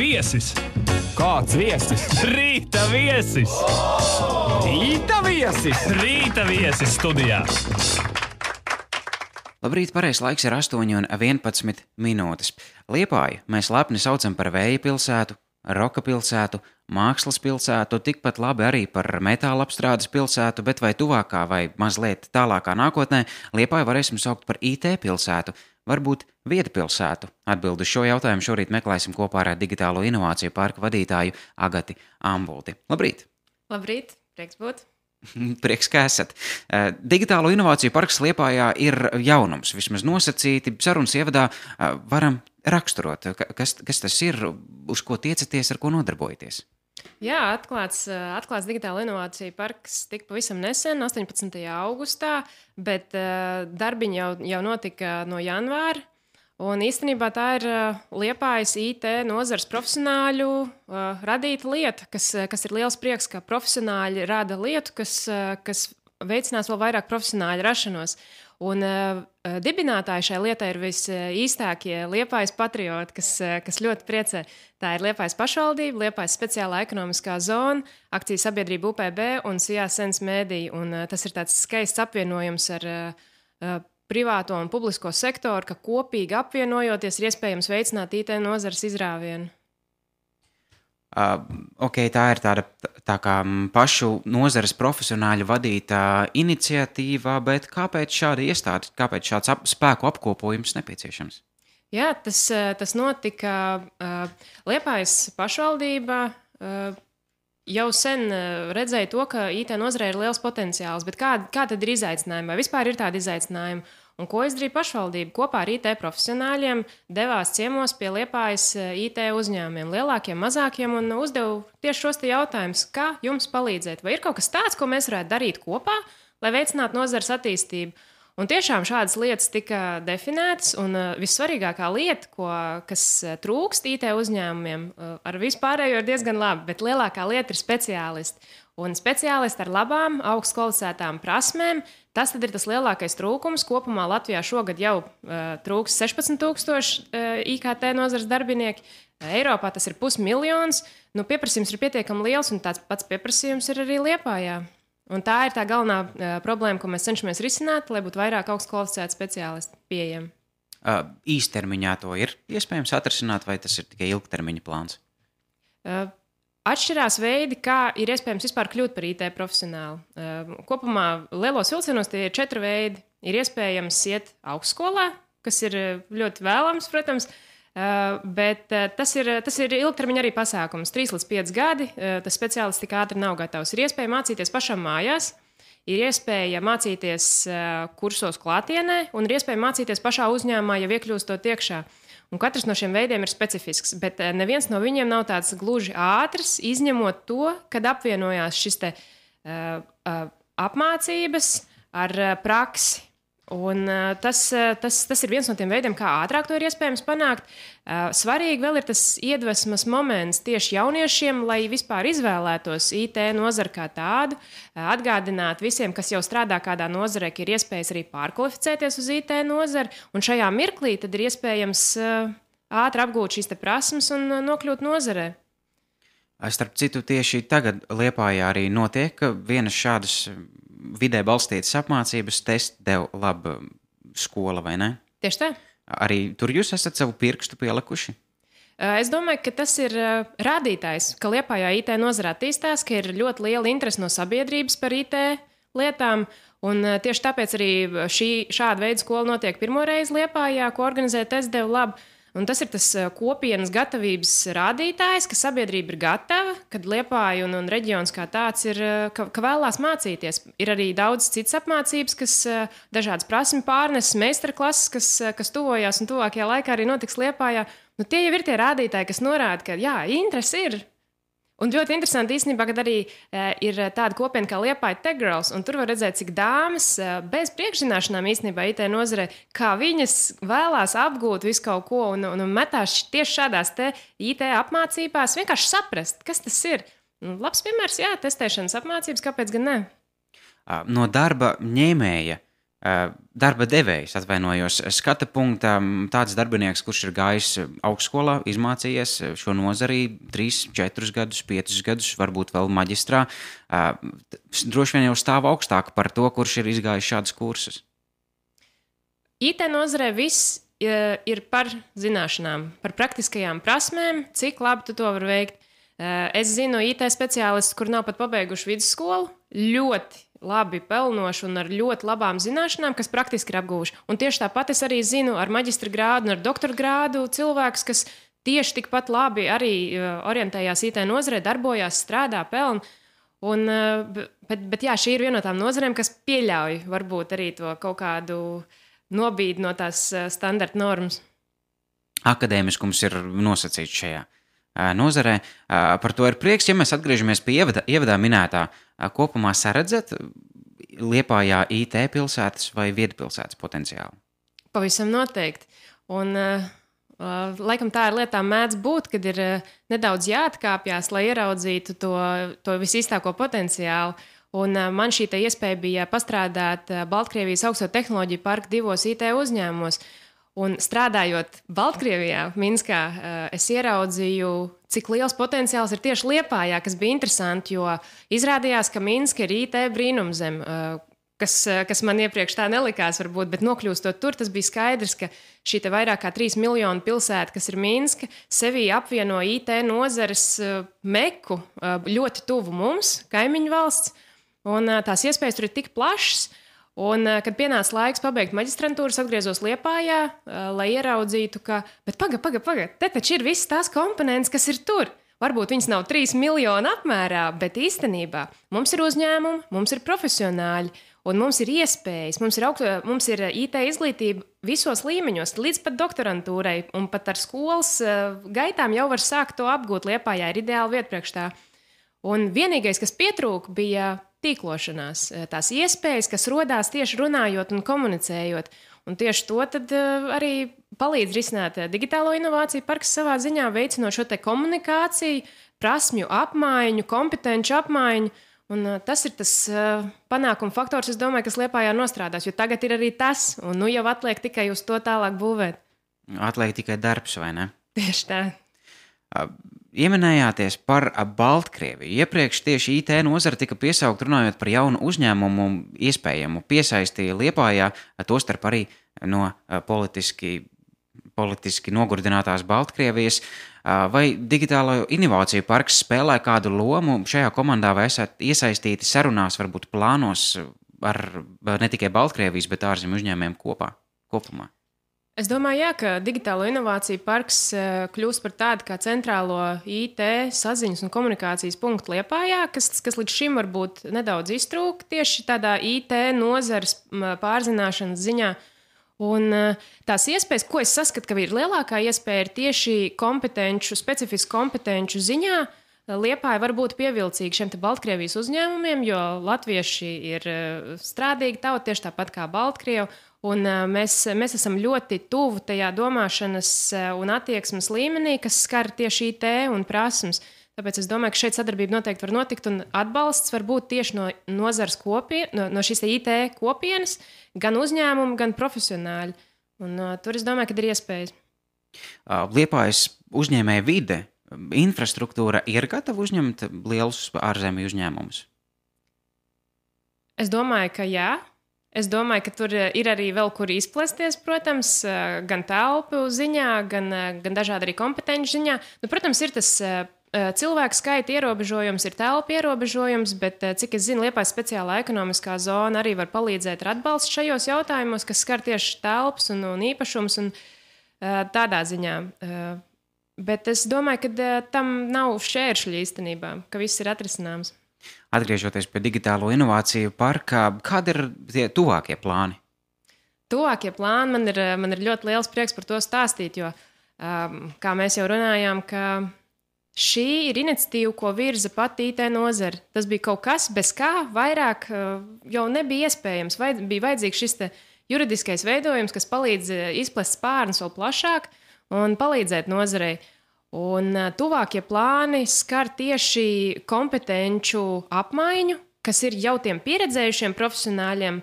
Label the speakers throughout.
Speaker 1: Viesis!
Speaker 2: Kāds viesis?
Speaker 1: Rīta viesis!
Speaker 2: Rīta viesis!
Speaker 1: Rīta viesis studijā!
Speaker 3: Labrīt, pareizais laiks ir 8:11 minūtes. Liepāju mēs lepni saucam par vēja pilsētu, roka pilsētu, mākslas pilsētu, tikpat labi arī par metāla apstrādes pilsētu, bet vai tuvākā vai mazliet tālākā nākotnē Liepāju varēsim saukt par IT pilsētu, varbūt vietpilsētu? Atbildi uz šo jautājumu šorīt meklēsim kopā ar Digitālo inovāciju parka vadītāju Agati Ambulti. Labrīt!
Speaker 4: Labrīt, prieks būt!
Speaker 3: Prieks, ka esat. Digitālo inovāciju parks Liepājā ir jaunums, vismaz nosacīti. Sarunas ievadā varam raksturot, kas tas ir, uz ko tiecaties, ar ko nodarbojaties.
Speaker 4: Jā, atklāts Digitālo inovāciju parks tika pavisam nesen, 18. augustā, bet darbiņi jau notika no janvāra. Un īstenībā tā ir Liepājas IT nozares profesionāļu radīta lieta, kas ir liels prieks, ka profesionāļi rada lietu, kas veicinās vēl vairāk profesionāļu rašanos. Un dibinātāji šai lietai ir visīstākie Liepājas patrioti, kas ļoti priecē. Tā ir Liepājas pašvaldība, Liepājas speciālā ekonomiskā zona, akciju sabiedrība UPB un Sijā Sens Mēdija. Un tas ir tāds skaists apvienojums ar privāto un publisko sektoru, ka kopīgi apvienojoties ir iespējams veicināt IT nozares izrāvienu.
Speaker 3: Tā ir tā kā pašu nozares profesionāļu vadīta iniciatīva, bet kāpēc šāda iestāde, kāpēc šāds spēku apkopojums nepieciešams?
Speaker 4: Jā, tas notika Liepājas pašvaldībā. Jau sen redzēju to, ka IT nozarē ir liels potenciāls, bet kā tad ir izaicinājumi? Vai vispār ir tādi izaicinājumi? Un ko izdarīja pašvaldība? Kopā ar IT profesionāļiem devās ciemos pie Liepājas IT uzņēmumiem, lielākiem, mazākiem, un uzdeva tieši šos jautājumus, kā jums palīdzēt? Vai ir kaut kas tāds, ko mēs varētu darīt kopā, lai veicinātu nozares attīstību? Un tiešām šādas lietas tika definētas, un vissvarīgākā lieta, kas trūkst IT uzņēmumiem, ar vispārējo ir diezgan labi, bet lielākā lieta ir speciālisti. Un speciālisti ar labām, augstu kvalificētām prasmēm, tas tad ir tas lielākais trūkums. Kopumā Latvijā šogad jau trūks 16,000 IKT nozares darbinieki. Eiropā tas ir 500,000. Pieprasījums ir pietiekami liels, un tāds pats pieprasījums ir arī Liepājā. Un tā ir tā galvenā problēma, ko mēs cenšamies risināt, lai būtu vairāk augstu kvalificētu speciālistu pieejami.
Speaker 3: Īstermiņā to ir iespējams atrisināt, vai tas ir tikai ilgtermiņa plāns?
Speaker 4: Atšķirās veidi, kā ir iespējams vispār kļūt par IT profesionālu. Kopumā lielos vilcienos tie ir 4 veidi. Ir iespējams iet augstskolā, kas ir ļoti vēlams, protams, bet tas ir ilgtermiņa arī pasākums. 3 līdz 5 gadi, tas speciālists tik ātri nav gatavs. Ir iespēja mācīties pašam mājās, ir iespēja mācīties kursos klātienē, un ir iespēja mācīties pašā uzņēmumā, jau iekļūstot iekšā. Un katrs no šiem veidiem ir specifisks, bet neviens no viņiem nav tāds gluži ātrs, izņemot to, kad apvienojās šis apmācības ar praksi. Un tas ir viens no tiem veidiem, kā ātrāk to ir iespējams panākt. Svarīgi vēl ir tas iedvesmas moments tieši jauniešiem, lai vispār izvēlētos IT nozari kā tādu, atgādināt visiem, kas jau strādā kādā nozarē, ka ir iespējas arī pārkvalificēties uz IT nozari, un šajā mirklī tad ir iespējams ātri apgūt šīs prasmes un nokļūt nozarē.
Speaker 3: Starp citu, tieši tagad Liepājā arī notiek vienas šādas vidē balstītas apmācības, Testdev Lab skola, vai ne?
Speaker 4: Tieši tā.
Speaker 3: Arī tur jūs esat savu pirkstu pielikuši?
Speaker 4: Es domāju, ka tas ir rādītājs, ka Liepājā IT nozara attīstās, ka ir ļoti liela interese no sabiedrības par IT lietām, un tieši tāpēc arī šāda veida skola notiek pirmoreiz Liepājā, ko organizē Testdev Lab. Un tas ir tas kopienas gatavības rādītājs, ka sabiedrība ir gatava, kad Liepāja un reģions kā tāds ir, ka vēlās mācīties. Ir arī daudz citas apmācības, kas dažādas prasmi pārnes, meistarklases, kas tuvojās un tuvākajā laikā arī notiks Liepājā. Tie jau ir tie rādītāji, kas norāda, ka jā, interesi ir. Un ļoti interesanti īstenībā, kad arī ir tāda kopiena kā Liepāja Tech Girls, un tur var redzēt, cik dāmas bez priekšzināšanām īstenībā IT nozarē, kā viņas vēlās apgūt visu kaut ko un metās tieši šādās IT apmācībās, vienkārši saprast, kas tas ir. Labs piemērs, jā, testēšanas apmācības, kāpēc gan ne?
Speaker 3: No darba ņēmēja darba devējs, atvainojos, skata punkta tāds darbinieks, kurš ir gājis augstskolā, izmācījies šo nozari 3, 4 gadus, 5 gadus, varbūt vēl maģistrā, droši vien jau stāv augstāk par to, kurš ir izgājis šādus kursus.
Speaker 4: IT nozarē viss ir par zināšanām, par praktiskajām prasmēm, cik labi tu to vari veikt. Es zinu IT speciālistus, kur nav pat pabeiguši vidusskolu, ļoti labi pelnoši un ar ļoti labām zināšanām, kas praktiski ir apguvuši. Un tieši tāpat es arī zinu ar maģistra grādu un ar doktora grādu cilvēkus, kas tieši tikpat labi arī orientējās IT nozarē, darbojās, strādā, pelna. Bet jā, šī ir viena no tām nozarēm, kas pieļauj varbūt arī to kaut kādu nobīdi no tās standarta normas.
Speaker 3: Akadēmiskums ir nosacīts šajā nozarē. Par to ir prieks, ja mēs atgriežamies pie ievadā minētā. Kopumā saredzat Liepājā IT pilsētas vai viedpilsētas potenciālu?
Speaker 4: Pavisam noteikti. Un laikam tā ir lietā mēdz būt, kad ir nedaudz jāatkāpjas, lai ieraudzītu to visīstāko potenciālu. Un man šī iespēja bija pastrādāt Baltkrievijas augsto tehnoloģiju parka 2 IT uzņēmumos. Un strādājot Baltkrievijā, Minskā, es ieraudzīju, cik liels potenciāls ir tieši Liepājā, kas bija interesanti, jo izrādījās, ka Minska ir IT brīnumzeme, kas man iepriekš tā nelikās varbūt, bet nokļūstot tur, tas bija skaidrs, ka šī vairāk kā 3 miljonu pilsēta, kas ir Minska, sevī apvieno IT nozares meku ļoti tuvu mums, kaimiņu valsts, un tās iespējas tur ir tik plašas. Un, kad pienāca laiks pabeigt maģistrantūru, atgriezos Liepājā, lai ieraudzītu, ka, bet paga, te taču ir visas tās komponentes, kas ir tur. Varbūt viņas nav 3 miljonu apmērā, bet īstenībā mums ir uzņēmumi, mums ir profesionāļi, un mums ir iespējas, mums ir IT izglītība visos līmeņos, līdz pat doktorantūrai, un pat ar skolas gaitām jau var sākt to apgūt. Liepājā ir ideāla vieta priekš tā. Un vienīgais, kas pietrūka, bija tīklošanās, tās iespējas, kas rodās tieši runājot un komunicējot. Un tieši to tad arī palīdz risināt digitālo inovāciju parks savā ziņā, veicinot šo komunikāciju, prasmju apmaiņu, kompetenci apmaiņu. Un tas ir tas panākuma faktors, es domāju, kas Liepājā nostrādās, jo tagad ir arī tas, un nu jau atliek tikai uz to tālāk būvēt.
Speaker 3: Atliek tikai darbs, vai ne?
Speaker 4: Tieši tā.
Speaker 3: Ieminējāties par Baltkrieviju. Iepriekš tieši IT nozara tika piesaukt runājot par jaunu uzņēmumu iespējamu piesaisti Liepājā, tostarp arī no politiski nogurdinātās Baltkrievijas. Vai digitālo inovāciju parks spēlē kādu lomu šajā komandā, vai esat iesaistīti sarunās, varbūt plānos ar ne tikai Baltkrievijas, bet ārzemju uzņēmējiem kopumā?
Speaker 4: Es domāju, jā, ka digitālo inovāciju parks kļūs par tādu kā centrālo IT saziņas un komunikācijas punktu Liepājā, kas līdz šim varbūt nedaudz iztrūka tieši tādā IT nozares pārzināšanas ziņā. Un tās iespējas, ko es saskatu, ka ir lielākā iespēja, ir tieši specifisku kompetenču ziņā. Liepāja var būt pievilcīga šiem Baltkrievijas uzņēmumiem, jo latvieši ir strādīgi tauta tieši tāpat kā Baltkrievi. Un mēs esam ļoti tuvu tajā domāšanas un attieksmes līmenī, kas skar tieši IT un prasmes. Tāpēc es domāju, ka šeit sadarbība noteikti var notikt, un atbalsts var būt tieši no nozares no šīs IT kopienas, gan uzņēmumu, gan profesionāļi. Un tur es domāju, ka ir iespējas.
Speaker 3: Liepājas uzņēmēja vide, infrastruktūra ir gatava uzņemt lielus ārzemju uzņēmumus?
Speaker 4: Es domāju, ka jā. Es domāju, ka tur ir arī vēl kur izplesties, protams, gan telpu ziņā, gan dažādi arī kompetenci ziņā. Nu, protams, ir tas cilvēku skaita ierobežojums, ir telpu ierobežojums, bet, cik es zinu, Liepājas speciālā ekonomiskā zona arī var palīdzēt ar atbalstu šajos jautājumos, kas skar tieši telpas un īpašums un tādā ziņā. Bet es domāju, ka tam nav šķēršļi īstenībā, ka viss ir atrisināms.
Speaker 3: Atgriežoties pie digitālo inovāciju parka, kādi ir tie tuvākie plāni?
Speaker 4: Tuvākie plāni man ir ļoti liels prieks par to stāstīt, jo, kā mēs jau runājām, ka šī ir iniciatīva, ko virza pati IT nozare. Tas bija kaut kas, bez kā vairāk jau nebija iespējams. Bija vajadzīgs šis juridiskais veidojums, kas palīdz izplest spārnus vēl plašāk un palīdzēt nozarei. Un tuvākie plāni skar tieši kompetenču apmaiņu, kas ir jau tiem pieredzējušiem profesionāļiem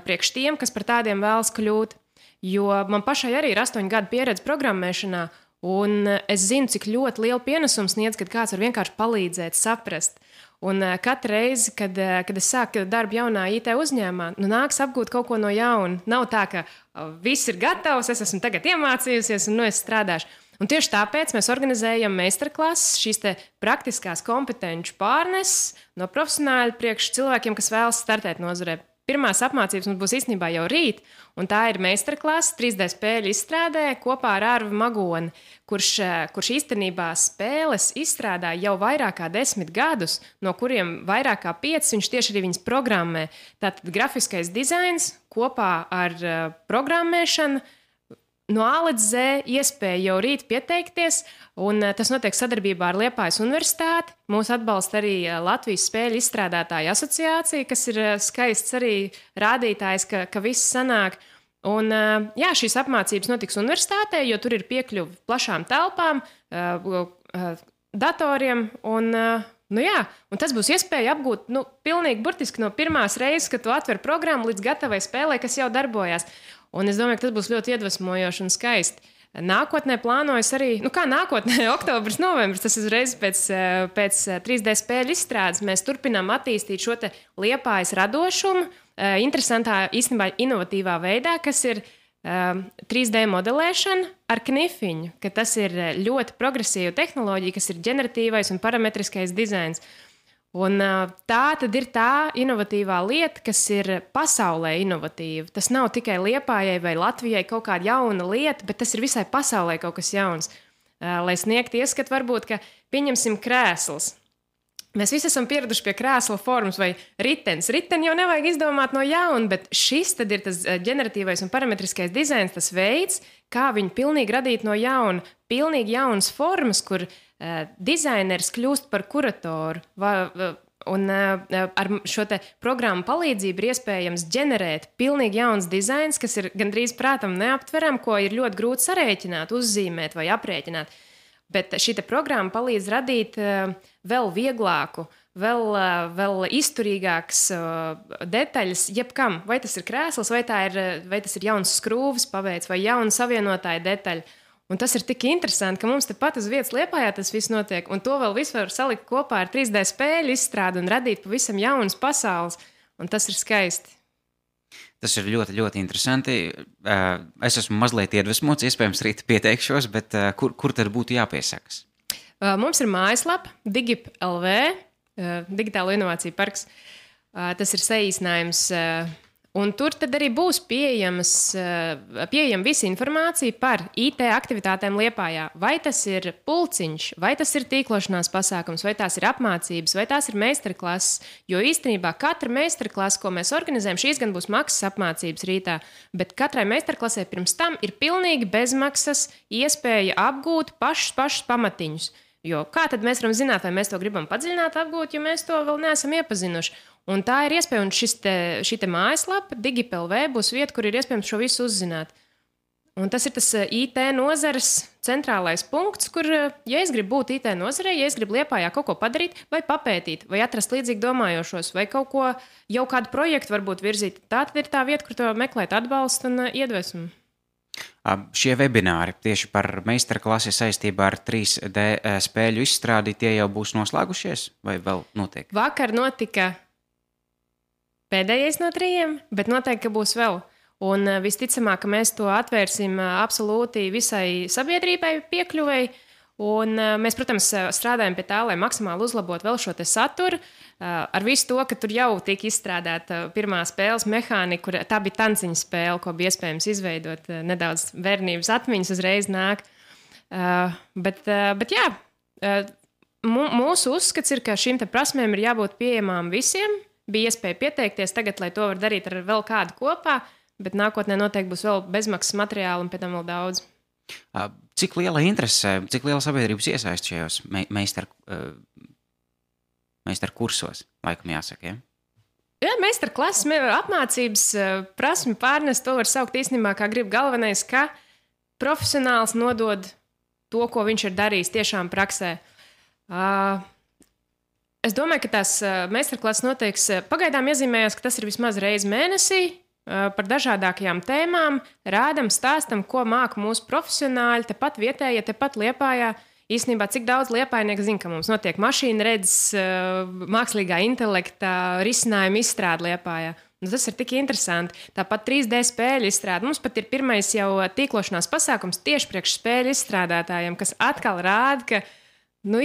Speaker 4: priekš tiem, kas par tādiem vēlas kļūt. Jo man pašai arī ir 8 gadu pieredze programmēšanā, un es zinu, cik ļoti lielu pienesumu sniedz, kad kāds var vienkārši palīdzēt, saprast. Un katru reizi, kad es sāku darbu jaunā IT uzņēmumā, nāks apgūt kaut ko no jauna. Nav tā, ka viss ir gatavs, es esmu tagad iemācījusies un es strādāšu. Un tieši tāpēc mēs organizējam meistarklases, šīs praktiskās kompetenču pārneses no profesionāļu priekš cilvēkiem, kas vēlas startēt nozarē. Pirmās apmācības mums būs īstenībā jau rīt, un tā ir meistarklase 3D spēļu izstrādē kopā ar Arvu Magoni, kurš īstenībā spēles izstrādā jau vairāk kā 10 gadus, no kuriem vairāk kā 5 viņš tieši arī viņas programmē. Tātad grafiskais dizains kopā ar programmēšanu, no A līdz Z iespēja jau rīt pieteikties, un tas notiek sadarbībā ar Liepājas universitāti. Mūs atbalsta arī Latvijas spēļu izstrādātāju asociācija, kas ir skaists arī rādītājs, ka viss sanāk. Un, jā, šīs apmācības notiks universitātē, jo tur ir piekļuve plašām telpām, datoriem, un tas būs iespēja apgūt pilnīgi burtiski no pirmās reizes, kad tu atver programmu līdz gatavai spēlē, kas jau darbojās. Un es domāju, ka tas būs ļoti iedvesmojoši un skaisti. Nākotnē plānojas arī, nākotnē, oktobris, novembris, tas uzreiz pēc 3D spēļu izstrādes. Mēs turpinām attīstīt šo te Liepājas radošumu, interesantā, īstenībā inovatīvā veidā, kas ir 3D modelēšana ar knifiņu, ka tas ir ļoti progresīva tehnoloģija, kas ir ģeneratīvais un parametriskais dizains. Un tā tad ir tā inovatīvā lieta, kas ir pasaulē inovatīva. Tas nav tikai Liepājai vai Latvijai kaut kāda jauna lieta, bet tas ir visai pasaulē kaut kas jauns. Lai sniegtu ieskatu, varbūt, ka pieņemsim krēsls. Mēs visi esam pieraduši pie krēsla formas vai ritenis. Riteni jau nevajag izdomāt no jauna, bet šis tad ir tas ģeneratīvais un parametriskais dizains, tas veids, kā viņu pilnīgi radīt no jauna. Pilnīgi jaunas formas, kur dizaineris kļūst par kuratoru. Un ar šo te programmu palīdzību ir iespējams ģenerēt pilnīgi jauns dizains, kas ir gandrīz prātam neaptveram, ko ir ļoti grūti sarēķināt, uzzīmēt vai aprēķināt. Bet šī programma palīdz radīt vēl vieglāku, vēl izturīgākas detaļas jebkam. Vai tas ir krēsls, vai tas ir jauns skrūves paveids, vai jauna savienotāja detaļa. Un tas ir tik interesanti, ka mums tepat uz vietas Liepājā tas viss notiek, un to vēl visu var salikt kopā ar 3D spēļu izstrādi un radīt pavisam jaunas pasaules, un tas ir skaisti.
Speaker 3: Tas ir ļoti, ļoti interesanti. Es esmu mazliet iedvesmots, iespējams rīt pieteikšos, bet kur tad būtu jāpiesakas?
Speaker 4: Mums ir mājaslapa Digip.lv, Digitālo inovāciju parks. Tas ir saīsinājums. Un tur tad arī būs pieejama visa informācija par IT aktivitātēm Liepājā. Vai tas ir pulciņš, vai tas ir tīklošanās pasākums, vai tās ir apmācības, vai tās ir meistarklases. Jo īstenībā katra meistarklase, ko mēs organizējam, šīs gan būs maksas apmācības rītā, bet katrai meistarklasē pirms tam ir pilnīgi bezmaksas iespēja apgūt pašus pamatiņus. Jo kā tad mēs varam zināt, vai mēs to gribam padziļināt apgūt, ja mēs to vēl neesam iepazinuši? Un tā ir iespēja, un šī mājaslapa, Digip.lv, būs vieta, kur ir iespējams šo visu uzzināt. Un tas ir tas IT nozares centrālais punkts, kur, ja es gribu būt IT nozarē, ja es gribu Liepājā kaut ko padarīt, vai papētīt, vai atrast līdzīgi domājošos, vai kaut ko, jau kādu projektu varbūt virzīt, tā tad ir tā vieta, kur to meklēt atbalstu un iedvesmu.
Speaker 3: Šie webināri tieši par meistarklasi saistībā ar 3D spēļu izstrādi, tie jau būs noslēgušies vai vēl notiek?
Speaker 4: Vakar notika pēdējais no 3, bet noteikti, ka būs vēl. Un visticamāk, ka mēs to atvērsim absolūti visai sabiedrībai piekļuvēji. Un mēs, protams, strādājam pie tā, lai maksimāli uzlabotu vēl šo te saturu. Ar visu to, ka tur jau tika izstrādāta pirmā spēles mehānika, tā bija tanciņa spēle, ko bija iespējams izveidot. Nedaudz bērnības atmiņas uzreiz nāk. Bet jā, mūsu uzskats ir, ka šīm te prasmēm ir jābūt pieejamām visiem. Bija iespēja pieteikties tagad, lai to var darīt ar vēl kādu kopā, bet nākotnē noteikti būs vēl bezmaksas materiāli un pēc tam vēl daudz.
Speaker 3: Cik liela interese, cik liela sabiedrības iesaist šajos meistaru kursos, laikam jāsaka, ja?
Speaker 4: Jā, meistarklases, apmācības, prasmi pārnest, to var saukt īstenībā, kā grib. Galvenais, ka profesionāls nodod to, ko viņš ir darījis tiešām praksē. Es domāju, ka tās meistarklases noteiks, pagaidām iezīmējās, ka tas ir vismaz reizi mēnesī, par dažādākajām tēmām, rādam, stāstam, ko māca mūsu profesionāļi, tepat vietējie, tepat Liepājā. Īstenībā, cik daudz liepājnieku zina, ka mums notiek mašīna redzes, mākslīgā intelekta risinājuma izstrāde Liepājā. Tas ir tik interesanti. Tāpat 3D spēļu izstrāde. Mums pat ir pirmais jau tīklošanās pasākums tieši priekš spēļu izstrādātājiem, kas atkal rāda, ka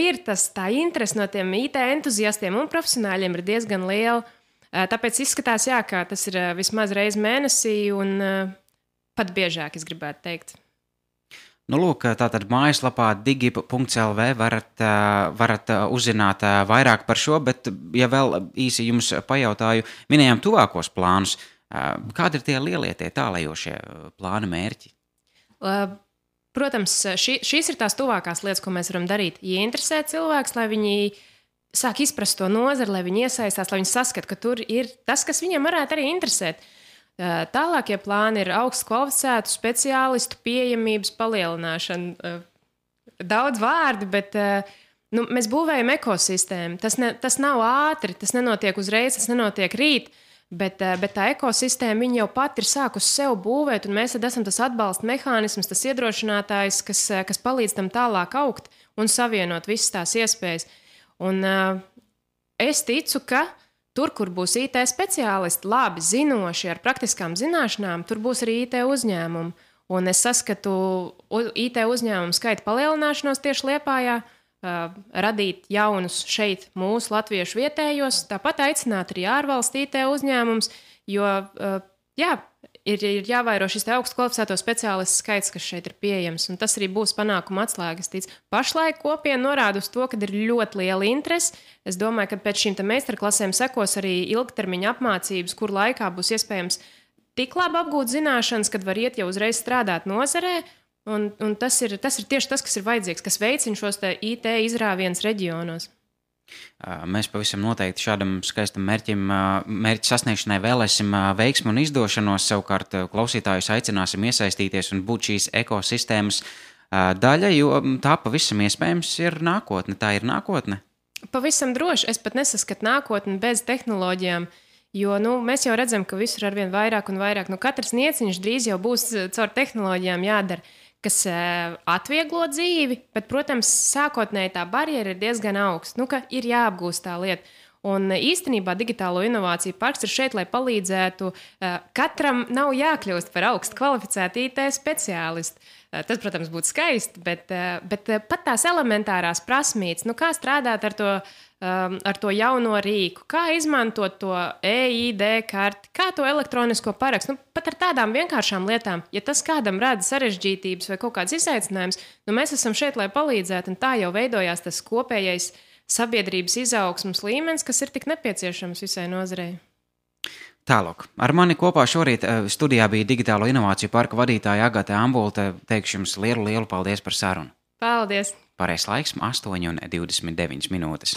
Speaker 4: ir tā interese no tiem IT entuziastiem un profesionāļiem ir diezgan liela. Tāpēc izskatās, ka tas ir vismaz reizi mēnesī un pat biežāk, es gribētu teikt.
Speaker 3: Lūk, tātad mājaslapā digi.lv varat uzzināt vairāk par šo, bet, ja vēl īsi jums pajautāju, minējām tuvākos plānus. Kādi ir tie lielie, tie tālējošie plāni mērķi?
Speaker 4: Protams, šīs ir tās tuvākās lietas, ko mēs varam darīt. Ieinteresēt cilvēks, lai viņi sāk izprast to nozari, lai viņi iesaistās, lai viņi saskata, ka tur ir tas, kas viņiem varētu arī interesēt. Tālākie plāni ir augstu kvalificētu speciālistu pieejamības palielināšana. Daudz vārdi, bet mēs būvējam ekosistēmu. Tas nav ātri, tas nenotiek uzreiz, tas nenotiek rīt, bet tā ekosistēma viņa jau pat ir sākusi sev būvēt, un mēs esam tas atbalsta mehānisms, tas iedrošinātājs, kas palīdz tam tālāk augt un savienot visas tās iespējas. Un es ticu, ka tur, kur būs IT speciālisti, labi zinoši ar praktiskām zināšanām, tur būs arī IT uzņēmumi. Un es saskatu IT uzņēmumu skaita palielināšanos tieši Liepājā, radīt jaunus šeit mūsu latviešu vietējos, tāpat aicināt arī ārvalstu IT uzņēmumus, jo ir jāvairo šis augstu kvalificēto speciālistu skaits, kas šeit ir pieejams, un tas arī būs panākuma atslēgas. Pašlaik kopiena norāda uz to, ka ir ļoti liela interese. Es domāju, ka pēc šīm meistarklasēm sekos arī ilgtermiņa apmācības, kur laikā būs iespējams tik labi apgūt zināšanas, kad var iet jau uzreiz strādāt nozarē, un tas ir tieši tas, kas ir vajadzīgs, kas veicina šos IT izrāvienus reģionos.
Speaker 3: Mēs pavisam noteikti šādam skaistam mērķa sasniegšanai vēlēsim veiksmu un izdošanos. Savukārt klausītājus aicināsim iesaistīties un būt šīs ekosistēmas daļa, jo tā pavisam iespējams ir nākotne. Tā ir nākotne?
Speaker 4: Pavisam droši. Es pat nesaskatu nākotni bez tehnoloģijām, jo mēs jau redzam, ka visur arvien vairāk un vairāk. Katrs nieciņš drīz jau būs caur tehnoloģijām jādara, kas atvieglo dzīvi, bet, protams, sākotnēji tā barjera ir diezgan augsta, ka ir jāapgūst tā lieta. Un īstenībā Digitālo inovāciju parks ir šeit, lai palīdzētu. Katram nav jākļūst par augstu kvalificētu IT speciālistu. Tas, protams, būtu skaisti, bet pat tās elementārās prasmītes, kā strādāt ar to jauno rīku, kā izmantot to EID karti, kā to elektronisko parakstu. Pat ar tādām vienkāršām lietām, ja tas kādam rada sarežģītības vai kaut kāds izaicinājums, mēs esam šeit, lai palīdzētu, un tā jau veidojās tas kopējais sabiedrības izaugsmas līmenis, kas ir tik nepieciešams visai nozarei.
Speaker 3: Tālāk. Ar mani kopā šorīt studijā bija Digitālo inovāciju parka vadītāja Agate Ambulte. Teikšu jums lielu paldies par sarunu.
Speaker 4: Paldies!
Speaker 3: Pareizais laiks 8:29 minūtes.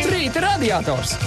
Speaker 2: Rīta radiators!